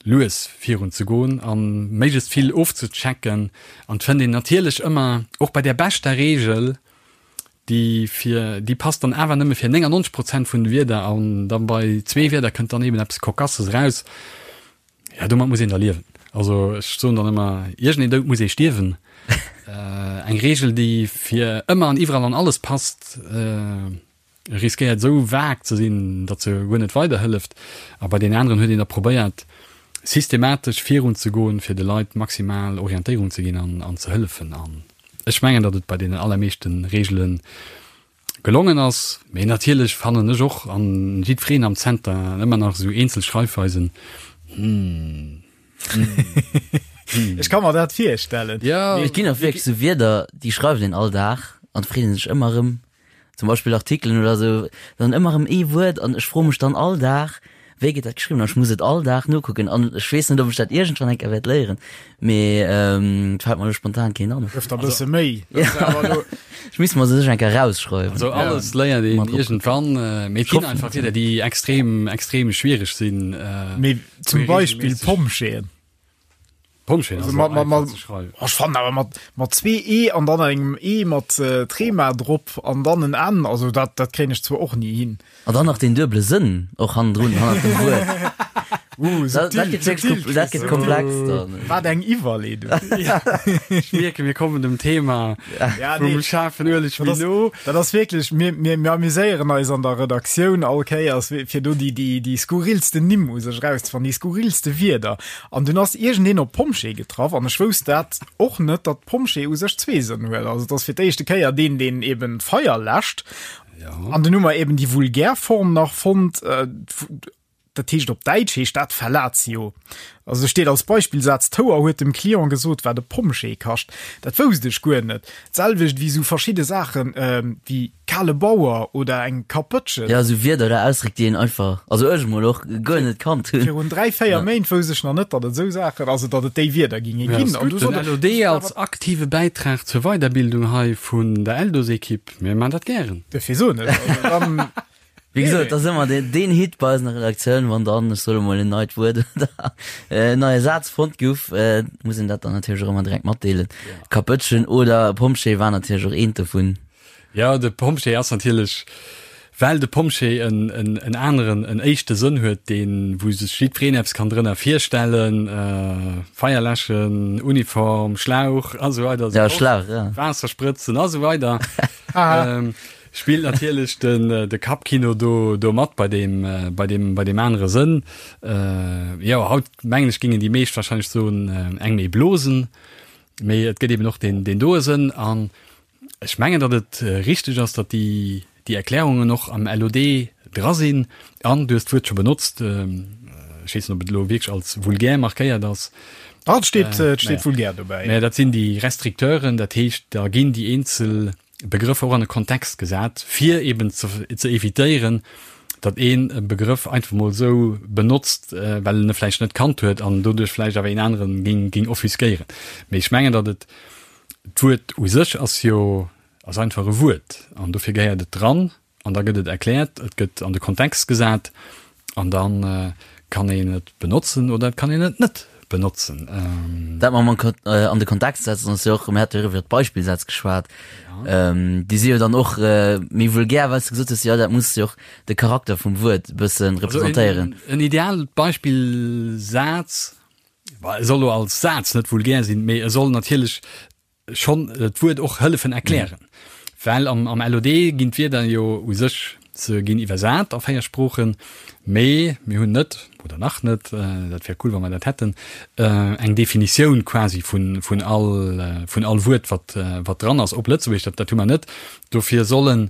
lues virun ze goen a méiglechst vill ofzechecken an et fënnt een natierlech ëmmer, och bei där beschter Reegel, déi fir, déi passt dann awer nëmme fir 99 Prozent vun de Wierder an da bei zwee Wierder kënnt dann eben eppes Cocasses eraus. Ja, domat muss een da liewen. Also ech soen dann ëmmer, iergendeen Doud muss ee stierwen. Eng Reegel, déi fir ëmmer an iwwerall an alles passt, riskéiert esou vague ze sinn, datt se guer net weiderhëlleft. A bei deenen aneren huet een da probéiert, systematesch virunzegoen, fir de Leit maximal Orientéierung ze ginn an an ze hëllefen. An ech mengen, datt et bei deenen allermeeschte Reegele gelongen ass. Mee natierlech fannen ech och, an jiddwereen am Zenter, ëmmer nach esou eenzel Schreifweisen, hm, hm, hm. Ech ka mer dat virstellen. Jo. Et ginn och wierklech esou Wierder, déi schreift een all Dag an et freet ee sech ëmmer erëm, zum Beispill Artikelen oder sou, dann ëmmer erëm ee Wuert an ech froe mech dann all Dag, wéi gëtt dat geschriwwen an ech muss et all Dag nokucken an ech weess net, ob ech dat iergendwann eng Kéier wäert léieren, mee et fält mer elo spontan keen an. Gëff der e bësse Méi. Ech misst mer se sech eng Kéier erausschreiwen. Also alles léiert een iergendwann, mee et ginn einfach Wierder, déi extrem, extrem schwiereg sinn. Mee zum Beispill Pompjeeën. Pompjee ass mat, mat, mat, ze schreiwen. Oh, ech fannen awer mat, mat zwee E an dann engem E mat äh, Trema drop an dann en N, also dat, dat kréien ech zwar och ni hin. An dann nach den duebele Sënn och hannendrun, hannert dem Wuert. Uh, Dat, dat subtil, gëtt wierklech subtil, kom- dat gëtt Chris. komplex dann. Wat eng Iwwerleedung. Ech mierken, mir kommen dem Thema Ja, vum nee. schaarfen Ueleg Dat méi ass, no. dat ass wierklech, mir, mir, mir amuséieren eis an der Redaktioun all Kéiers, fir do déi, déi, déi skurrilsten Nimm u sech erauszefannen, déi skurrilste Wierder. An dunn ass iergendeen op Pompjee getraff an ech wousst dat och net, datt Pompjee u sech zwee Sënn huet. Also et ass fir d'éischte Kéier deen, deen eben d'Feier läscht. An dunn hu mer eben déi vulgär Form nach fonnt, dat heescht op Däitsch heescht dat Fellatio. Also do steet als Beispillsaz, D'Houer huet dem Client gesot, wat e Pompjee kascht. Dat wousst ech guer net. D'selwecht wéi esou verschidde Saachen wéi kale Bauer oder eng Kapëtschen. Ja, esou Wierder oder Ausdréck, déi een einfach, also ech emol och, guer net kannt hunn. Virun 3, 4 Méint wousst ech nach net, datt et esou Saachen, also datt et déi Wierder ginge Ja, ginn. ass An du gutt. Den sot, LOD als aktive Bäitrag zur Weiderbildung hei vun der Eldos-Ekipp, mir man dat gären. Dofir soen ech, also dann. Wéi gesot, dat ass ëmmer deen, deen Hit bei eis an der Redaktioun, wann dann, ech soe mol, en neit Wuert oder en neie Saz fonnt gouf, muss een dat dann natierlech och ëmmer direkt matdeelen. Kapëtschen oder Pompjee war natierlech och eent dovun. Jo, de Pompjee ass natierlech, well de Pompjee en, en, en aneren, en éischte Sënn huet, deen, wou sech jiddwereen eppes kann drënner virstellen, Feier läschen, Uniform, Schlauch a sou weider, Ja, Schlauch, ja. Waasser sprëtzen a sou weider. Spillt natierlech den de Kappkino do do mat bei deem bei deem bei deem anere Sënn. Jo, haut mengen ech gingen déi meescht wahrscheinlech soen eng méi blosen, mee et gëtt eben och deen deen doe Sënn an ech mengen datt et richteg ass, datt déi déi Erklärungen och am LOD dra sinn an du hues d'Wuert scho benotzt, ech weess net ob et elo wierklech als vulgär markéiert ass. Ah, et steet et steet vulgär dobäi. Mä dat sinn déi Restricteuren, dat heescht da ginn déi eenzel Begrëffer och an e Kontext gesat, fir eben ze ze evitéieren, datt een e Begrëff einfach mol esou benotzt, well en e vläicht net kannt huet an doduerch vläicht awer een aneren géing géing offusquéieren. Mee ech mengen, datt et, d'Wuert u sech ass jo ass einfach e Wuert an dofir gehéiert et dran an da gëtt et erkläert, et gëtt an de Kontext gesat an da kann een et benotzen oder et kann een et net benotzen. Dat mam an de Kontext setzen ass jo och, mir hate jo iwwer d'Beispillsätz geschwat, déi si jo dann och méi vulgär, well s de gesot hues, jo dat muss jo och de Charakter vum Wuert e bësse representéieren. En ideaalt Beispillsaz, e soll elo als Saz net vulgär sinn, mee e soll natierlech schonn d'Wuert och hëllefen erklären, well am am LOD ginn d'Wierder jo u sech, se ginn iwwersat a 4 Sproochen, mee mir hunn net, oder nach net, dat wär cool wa mer dat hätten, eng Definitioun quasi vun vun all vun all Wuert wat wat dran ass op Lëtzebuergesch, dat dat hu mer net. Dofir sollen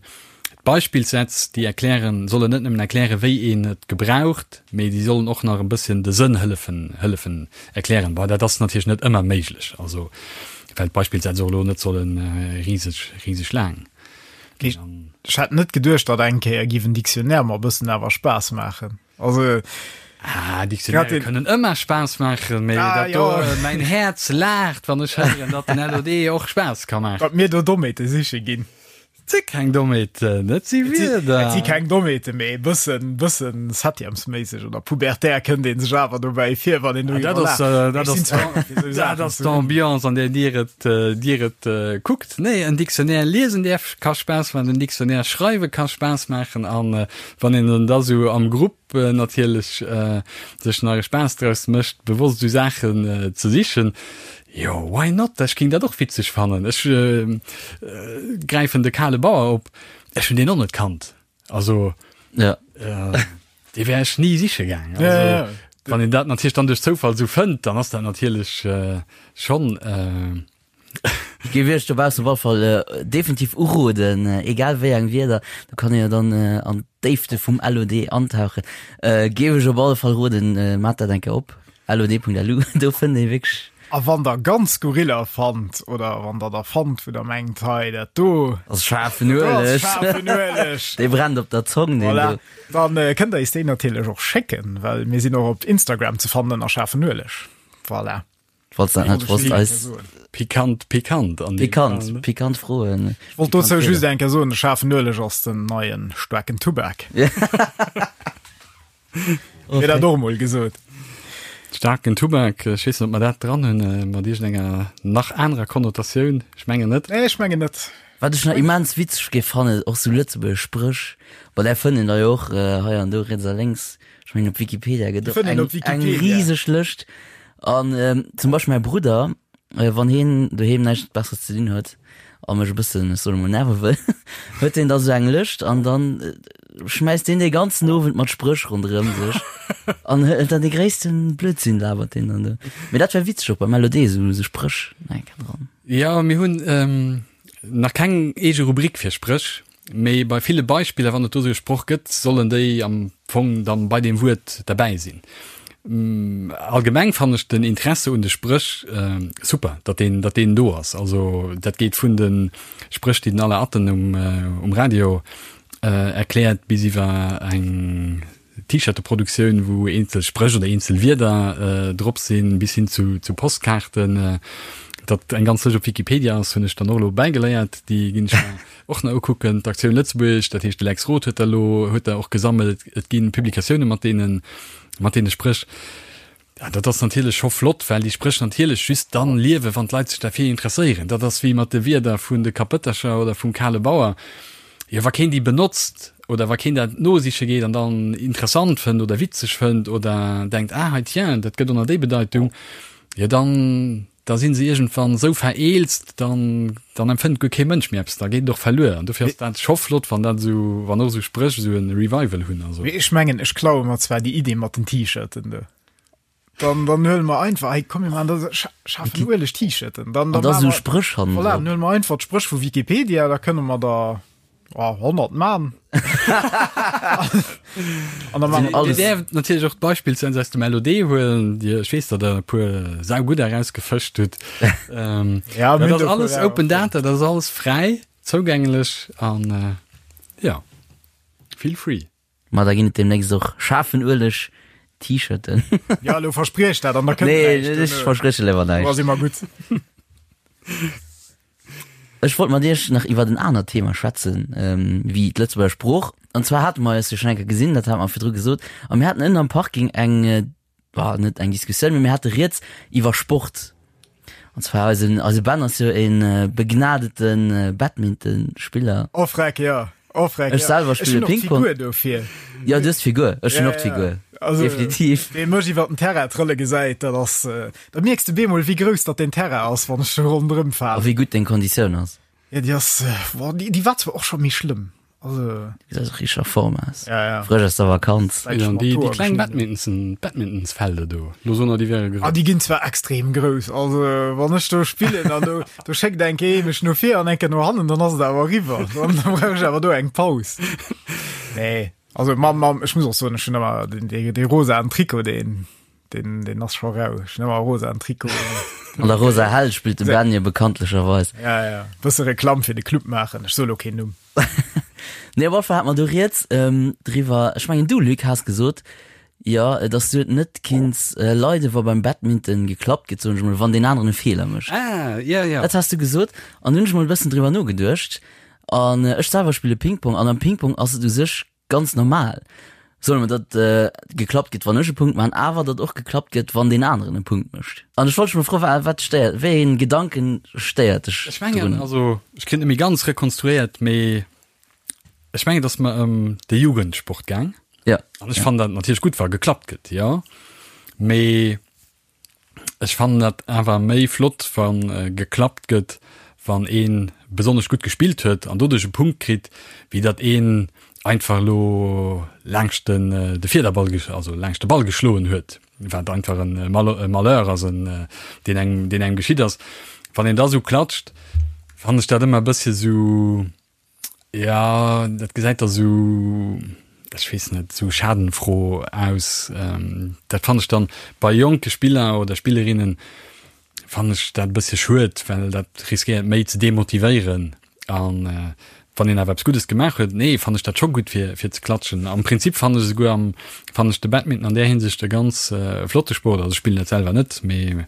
D'Beispillssätz, déi erklären, sollen net nëmmen erklären, wéi een et gebraucht, mee déi sollen och nach e bësschen de Sënn hëllefen, hëllefen erklären. Bon, dat ass natierlech net ëmmer méiglech, also well d'Beispillsätz och elo net solle riseg, riseg laang ginn. Ech hätt net geduecht, datt eng Kéier giff en Dictionnaire mer e bëssen awer Spaass maachen. Also Ah, Dictionnaire kënnen ëmmer Spaass maachen, mee ah, dat do, ja. mäin Häerz laacht, wann ech héieren, datt den LOD och Spaass ka maachen. Datt mir do Dommheete siche ginn. Et si keng Dommheeten, et si Wierder. Et si keng Dommheeten, mee e bëssen, bëssen septièmesméisseg oder pubertär kënnt ee sech awer dobäi vir, wann een doriwwer laacht. Dat ass, dat ass d'Ambiance, an där Dir et, Dir et kuckt. Nee, en Dictionnaire liesen däerf, ka Spaass maachen, en Dictionnaire schreiwe ka Spaass maachen an wann een en da sou am Grupp natierlech sech nach e Spaass draus mécht, bewosst esou Saachen ze sichen, jo, why not? Ech géing dat och witzeg fannen. Ech gräifen de kale Bauer op, ech hunn deen och net kannt. Also dee wär ech ni siche gaang. Also wann een dat natierlech dann duerch Zoufall esou fënnt, dann ass dat natierlech schonn. Ech géif iech dobaussen op alle Fall definitiv uroden, egal wéi eng Wierder, do kann een jo dann an d'Déifte vum LOD antauchen, géif ech op alle Fall roden, maacht dat eng Kéier op, lod.lu, do fënnt ee wierklech. A wann der ganz skurriller fannt oder wann der der fannt, wou der mengt, hei dat do ass schaarfen Ueleg, schaarfen Ueleg, dee brennt op der Zong, deen voilà. do. Dann kënnt der eis déi natierlech och schécken, well mir sinn och op Instagram ze fannen ënner schaarfen Ueleg. Voilà. Falls dat net wosst, eis. Pikant, pikant an deem Fall, ne? Pikant, pikant Froen. Ech wollt dozou just eng Kéier soen, de schaarfen Ueleg ass den neien staarken Tubak. Wier dat och emol gesot. Staarken Tubak, ech weess net, ob mer dat dran hunn, mat iergendenger nach anerer Konnotatioun. Ech mengen net. Nee, ech mengen net. Wat ech nach immens witzeg géif fannen, och sou lëtzebuergesch Spréch, bon där fënnt een der jo och hei an do riets a lénks, ech mengen op Wikipedia gëtt och eng eng riseg Lëscht. An zum Beispill mäi Brudder, wann hien doheem näischt Besseres ze dinn huet a mech e bëssen, ech soen emol, nerve wëll, huet hien da sou eng Lëscht an dann schmäisst deen dee ganzen Owend mat Spréch ronderëm sech an huet dann dee gréissten Blödsinn labert deen dann do. Mee dat wär witzeg och beim LOD, sou sou Spréch nach eng Kéier dran. Jo, mir hunn nach keng eege Rubrik fir Spréch, mee bei ville Beispiller, wann et do sou e Sproch gëtt, sollen déi am Fong dann bei deem Wuert derbäi sinn. Allgemeng fannen ech den Interesse un de Spréch super, datt deen, datt deen do ass. Also dat geet vun de Spréch, déi den Alain Atten um, um Radio erkläert, bis iwwer eng T-Shirte-Produktioun, wou eenzel Spréch oder eenzel Wierder drop sinn, bis hin zu zu Postkaarten. Datt eng ganz Lëscht op Wikipedia ass, hunn ech dann och elo bäigeléiert. Déi ginn ech mer och nach ukucken. D'Aktioun Lëtzebuergesch, dat heescht de Lex Roth huet der elo huet der och gesammelt. Et gi Publikatioune mat deene mat deene Spréch. Ja, dat ass natierlech scho flott, well déi Spréch natierlech just dann liewen, wann d'Leit sech derfir interesséieren. Dat ass wéi mat de Wierder vun de Kapëttercher oder vum kale Bauer. Jo, wa keen déi benotzt oder wa keen dat nosiche geet an dann interessant fënnt oder witzeg fënnt oder denkt, ah, hei tiens, dat gëtt ënner déi Bedeitung, jo dann, da si se iergendwann esou vereelzt, dann, dann empfënnt guer kee Mënsch méi eppes, da geet et och verluer. An dofir ass dat scho flott, wann dat esou, wann och esou Spréch esou e Revival hunn. Also. Mee ech mengen, ech klaue mer zwar déi Idee mat den T-Shirten do. Dann, dann huele mer einfach, hey, komm, mir maachen da schafen ueleg T-Shirten. Dann, dann An da esou Spréch hannen Voilà, dann huele mer einfach d'Spréch vu Wikipedia, da kënne mer der oh, 100 man. An da man alles. Dir däerft natierlech och d'Beispill aus dem LOD huelen, Dir, ech weess, datt Der e puer saugutt erausgefëscht hutt. Ähm, ja, dat ass alles Open Data, dat ass alles fräi zougänglech an äh, ja, feel free. Ma da ginn et demnächst och schaarfen Ueleg T-Shirten. Ja, elo verspriech dat an da kënnt Nee, näischt. ech versprieche léiwer näischt. Da si mer gutt. Ech wollt mat Iech nach iwwert en anert Thema schwätzen, wéi d'Lëtzebuerger Sprooch. An zwar hate mer eis jo schonn eng Kéier gesinn, dat hate mer virdru gesot, a mir haten ënnen am Parking eng, bah, net eng Diskussioun, mee mir hate rieds iwwer Sport. An zwar eisen, eise Ben ass jo e begnadete Badmintonspiller. Oh freck, jo. Oh freck, Ech selwer spille Ping-Pong. Ech hunn och d'Figur dofir. Jo, du hues d'Figur. Ech hunn och d'Figur. Also, Definitiv. Wee mech iwwer den Terrain trëlle gesäit, dat ass, da mierks de bemol, wéi grouss datt deen Terrain ass, wann ech do ronderëm A falen. wéi gutt deng Konditioun ass. Ja, déi ass, boah, déi, déi war zwar och scho méi schlëmm. Also. Du gesäis och richteg a Form aus. Ja, ja. Frësch aus der Vakanz. Seit Ja, an déi, déi kleng Badminton, Badmintonsfelder do, lo soen der, déi wäre grouss. Ah, déi ginn zwar extrem grouss. Also, wann ech do spillen an do, do schéckt eng Kéier ee mech no vir an eng Kéier no hannen, dann ass et awer eriwwer. Dann brauch ech awer do eng Paus. Nee, also mam, mam, ech muss och soen, ech hunn ëmmer den, dee, dee rosaen Trikot, deen, deen, deen ass scho rau. Ech hunn ëmmer e rosaen Trikot. An der rosa Hell spillt de Ben jo bekanntlecherweis. Ja, ja. Bësse Reklamm fir de Club maachen. Ech soe lo keen Numm. Nee, op alle Fall hat mer do rieds ähm, driwwer. Ech mengen du, Luc, has gesot, jo, dass du et net kinns äh, leiden, wa beim Badminton geklappt gëtt, soen ech mol, wann deen aneren e Feeler mécht. Ah, ja, ja. Dat has du gesot. An hunn ech mol e bëssen driwwer nogeduecht. An äh, ech selwer spille Ping-Pong an am Ping-Pong ass et u sech ganz normal, solle mer, datt geklappt gëtt, wann ech e Punkt maachen, awer datt och geklappt gëtt, wann deen aneren e Punkt mécht. An ech wollt dech mol froen, wa wat stéiert, wéi een Gedanken stéiert dech Ech mengen, drun? also ech kritt net méi ganz rekonstruéiert, mee ech mengen, et ass mer ëm de Jugendsport gaang. Ja. An ech fannen dat natierlech gutt, wa geklappt gëtt, jo. Mee Ech fannen dat awer méi flott wann geklappt gëtt wann een besonnesch gutt gespillt huet an doduerch e Punkt kritt, wéi datt een einfach elo laangscht den de Fiederball also laangscht de Ball geschloen huet, wat einfach en Malheur ass en deen engem deen engem geschitt ass. Wann een da sou klatscht, fannen ech dat ëmmer e bëssche sou Ja, dat gesäit da sou, ech weess net, sou schadenfroh aus. Dat fannen ech dann bei jonke Spiller oder Spillerinnen fannen ech dat e bëssche schued, well dat riskéiert méi ze demotivéieren. An wann een awer eppes Guddes gemaach huet, nee, fannen ech dat scho gutt fir fir ze klatschen. Am Prinzip fannen ech esouguer am fannen ech de Badminton an där Hinsicht e ganz flotte Sport. Also ech spillen dat selwer net, mee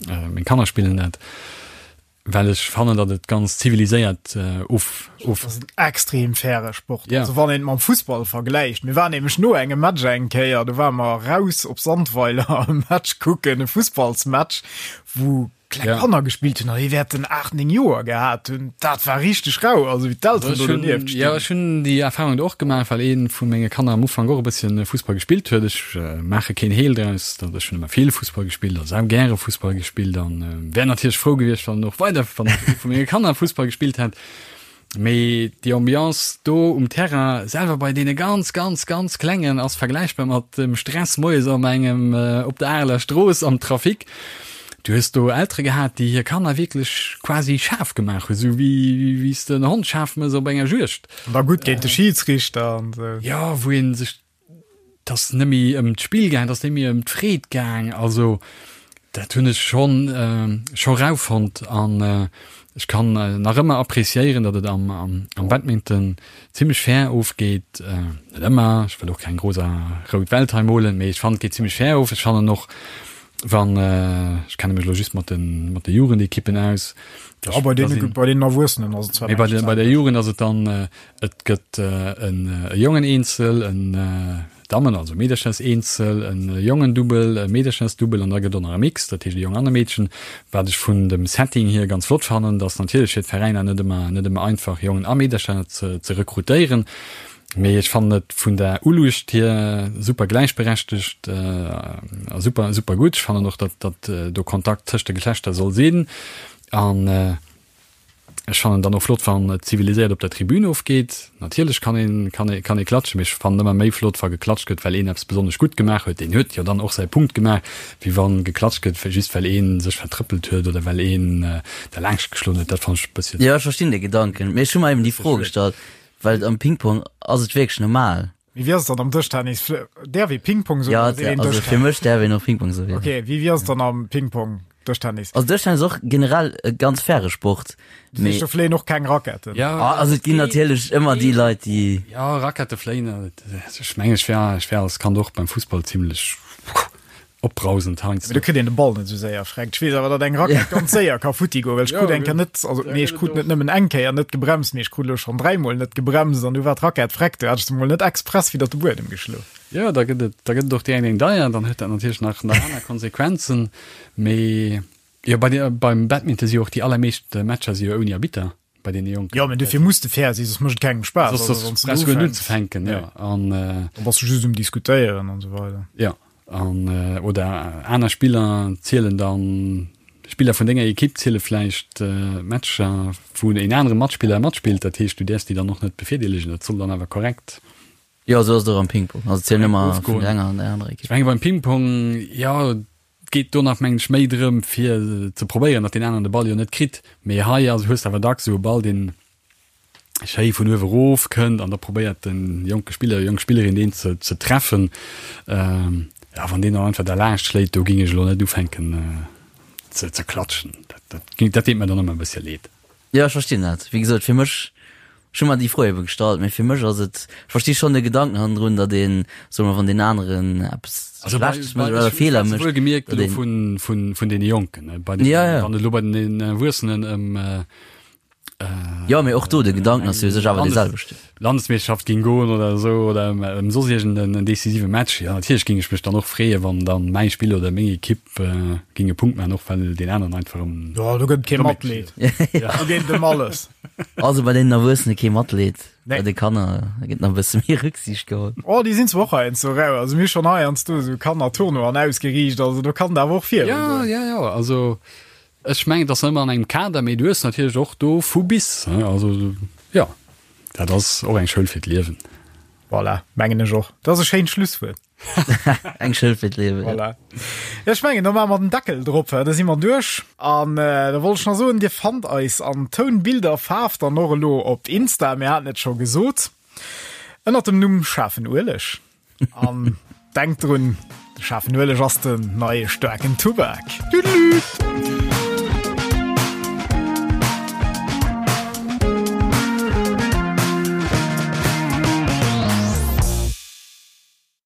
meng Kanner spillen dat. Well ech fannen, datt et ganz ziviliséiert of, of. Dat ass en extrem faire Sport. Ja. Also wann een et mam Fussball vergläicht. Mir waren nämlech no engem Match eng Kéier, do ware mer raus op Sandweiler e Match kucken, e Fussballsmatch, wou kleng Ja. Kanner gespillt hunn an déi wäerten 8, 9 Joer gehat hunn. Dat war richteg rau, also wéi d'Elteren Also do ech hunn, donieft ja, stinn. ech hunn déi Erfahrung do och gemaach, well ee vu menge Kanner am Ufank och e bësschen Fussball gespillt huet. Ech maache keen Heel draus, datt ech hunn ëmmer vill Fussball gespillt a sau gäre Fussball gespillt an wär natierlech frou gewiescht, wann och weider wann ee vu menge Kanner Fussball gespillt hätt. Mee déi Ambiance do um Terrain selwer bei deene ganz, ganz, ganz Klengen ass vergläichbar mat dem Stress moies am engem op der Areler Strooss am Trafic. Du hues do Eltere gehat, déi hir Kanner wierklech quasi schaarf gemaach hunn, esou wéi wéi s de en Hond schaarf mëss op enger Juegd. An da gutt géint de Schidsrichter an esou. Jo, wou ee sech 't ass net méi ëm d'Spill gaang, 't ass net méi ëm d'Freed gaang. Also dat hunn ech schonn scho rau fonnt an ech kann nach ëmmer appréciéieren, datt et am am Badminton zimmlech fair ofgeet. Net ëmmer, ech wëll och keng rosa rout Welt hei molen, mee ech fannen et geet zimmlech fair of. Ech fannen och wann, ech kenne mech elo just mat de mat de Jugendekippen aus, Ja, bei deene bei deenen Erwuessenen ass et zwar mee bei meeschtens de bei der anescht. Jugend ass et dann Et gëtt e Jongen-Eenzel, en Dammen also Meederchers-Eenzel, e Jongen-Dubbel, e Meederchers-Dubbel an da gëtt och nach e Mix, dat heescht e Jong an e Meedchen. Wat ech vun dem Setting hier ganz flott fannen, et ass natierlech fir d'Veräiner net ëmmer net ëmmer einfach Jongen a Meedercher ze ze rekrutéieren, mee ech fannen et vun der Uluecht hier super gläichberechtegt a super super gutt. Ech fannen och, datt datt do Kontakt tëscht de Geschlechter soll sinn an Ech fannen dann och flott wann et ziviliséiert op der Tribün ofgeet. Natierlech kann een kann ee kann ee klatschen, mee ech fannen ëmmer méi flott wa geklatscht gëtt well een eppes besonnesch gutt gemaach huet, deen huet jo dann och säi Punkt gemaach, wéi wann geklatscht gëtt just well een sech vertrëppelt huet oder well een derlaanscht geschloen huet. Dat fannen ech e bësschen. Jo, ech verstinn de Gedanken, mee ech hu mer eben déi Fro gestallt, well am Ping-Pong ass et wierklech normal. Mee wéi ass et dann am Dëschtennis? Däerf ee Ping-Pong soen Ja, oder seet een also fir Dëschtennis? mech däerf een och Ping-Pong soen. Okay, wéi wéi ass et dann am Ping-Pong, Dëschtennis? Also Dëschtennis ass och generell e ganz faire Sport, Dat heescht, mee do fléien och keng Raketten? Ja, ah, also et ginn natierlech ëmmer déi Leit, déi. Ja, Rakette fléien, ech mengen, ech wär, ech wär als Kand och beim Fussball zimlech opbrausend heiansdo. Mee do kritt een de Ball net esou séier freckt. Ech weess awer, datt eng Rackett ganz séier ka futti goen, well ech krut eng Kéier net, also nee, ech krut net nëmmen eng Kéier net gebremst, mee ech krut elo schonn dräimol net gebremst an du war d'Rackett freck, du hat ech se mol net express widder de Buedem geschloen. Jo, da gëtt et, da gëtt et och direkt eng deier, dann huet dat natierlech nach, nach aner Konsequenzen. Mee jo, bei de, beim Badminton si jo och déi allermeescht Matcher si jo ouni Arbitter. bei deene Jonken. Jo, mä dofir muss de fair sinn, soss mécht et kengem Spaass. Soss, Also, wann soss s du brauchst du guer net ufänks, unzefänken, ja. An, äh, dann bass du just um Diskutéieren an esou weider. Ja, an, äh, oder aner Spiller zielen dann, Spiller vun denger Ekipp ziele vläicht äh, Matcher, wou en anere Matspiller matspillt, dat heescht, du däerfs déi dann och net bevirdeelegen, dat soll dann awer korrekt Jo, esou ass et och am Ping-Pong. Also et zielen ëmmer vun ofgoen. der enger an der anerer Ech Ekipp. menge beim Ping-Pong, jo, Et geet do nach mengen ech méi drëm fir ze probéieren, datt deen aneren de Ball jo net kritt. Mee hei ass hues de awer dacks esou e Ball, deen schéi vun uewe rof kënnt an da probéiert de jonke Spiller, jonk Spillerin deen ze ze treffen. Jo, wann deen dann einfach derlaanscht schléit, do géing ech elo net ufänken ze ze klatschen. Dat dat géing dat deet mer dann ëmmer e bëssche leed. Jo, ech verstinn dat. Wéi gesot, fir mech, ech hu mer déi Fro ebe gestallt, mee fir mech ass et, ech versti schonn de Gedanken hannendrun, datt een, soe mer, wann deen aneren eppes Also bei, Schlechtes bei, mécht oder ech, ech Feeler schwätze mécht, wuelgemierkt datt elo een. vun, vun, vun deene Jonken, ne, bei den, Ja, ja. wann et elo bei den Erwuessenen ëm, Jo, mee och do, de Gedanken ass jo u sech awer dee selwechten. Landesmeeschterschaft ging goen oder esou oder ëm soss iergend en decisive Match, jo natierlech ging ech mech dann och freeën, wann dann mäi Spiller oder meng Ekipp ging e Punkt maachen, och well deen aneren einfach ëm. Jo, do gëtt et kee Matleed. Do geet et ëm alles. Also bei deenen Erwuessene kee Matleed, Nee. bei de Kanner gëtt nach e bësse méi Rücksicht geholl. Oh, déi sinn zwar och heiansdo rau. Also mir hu schonn heiansdo esou Kannertournoien ausgeriicht, also do kann et awer och Jo, virugoen. jo, jo, also Ech mengen, et ass ëmmer an engem Kader, mee du hues natierlech och do vu bis. Also jo, dat ass och eng Schoul fir d'Liewen. Voilà, mengen ech och. Dat ass e schéint Schlusswuert. Eng Schoul fir d'Liewen, jo. Voilà. Ech mengen, da maache mer den Deckel drop, da si mer duerch. An da wollt ech nach soen, Dir fannt eis an Toun, Bild a Faarf dann och elo op Insta, mir haten et scho gesot, ënnert dem Numm Schaarfen Ueleg. An denkt drun, de schaarfen Ueleg ass den neie staarken Tubak. Tüdelü!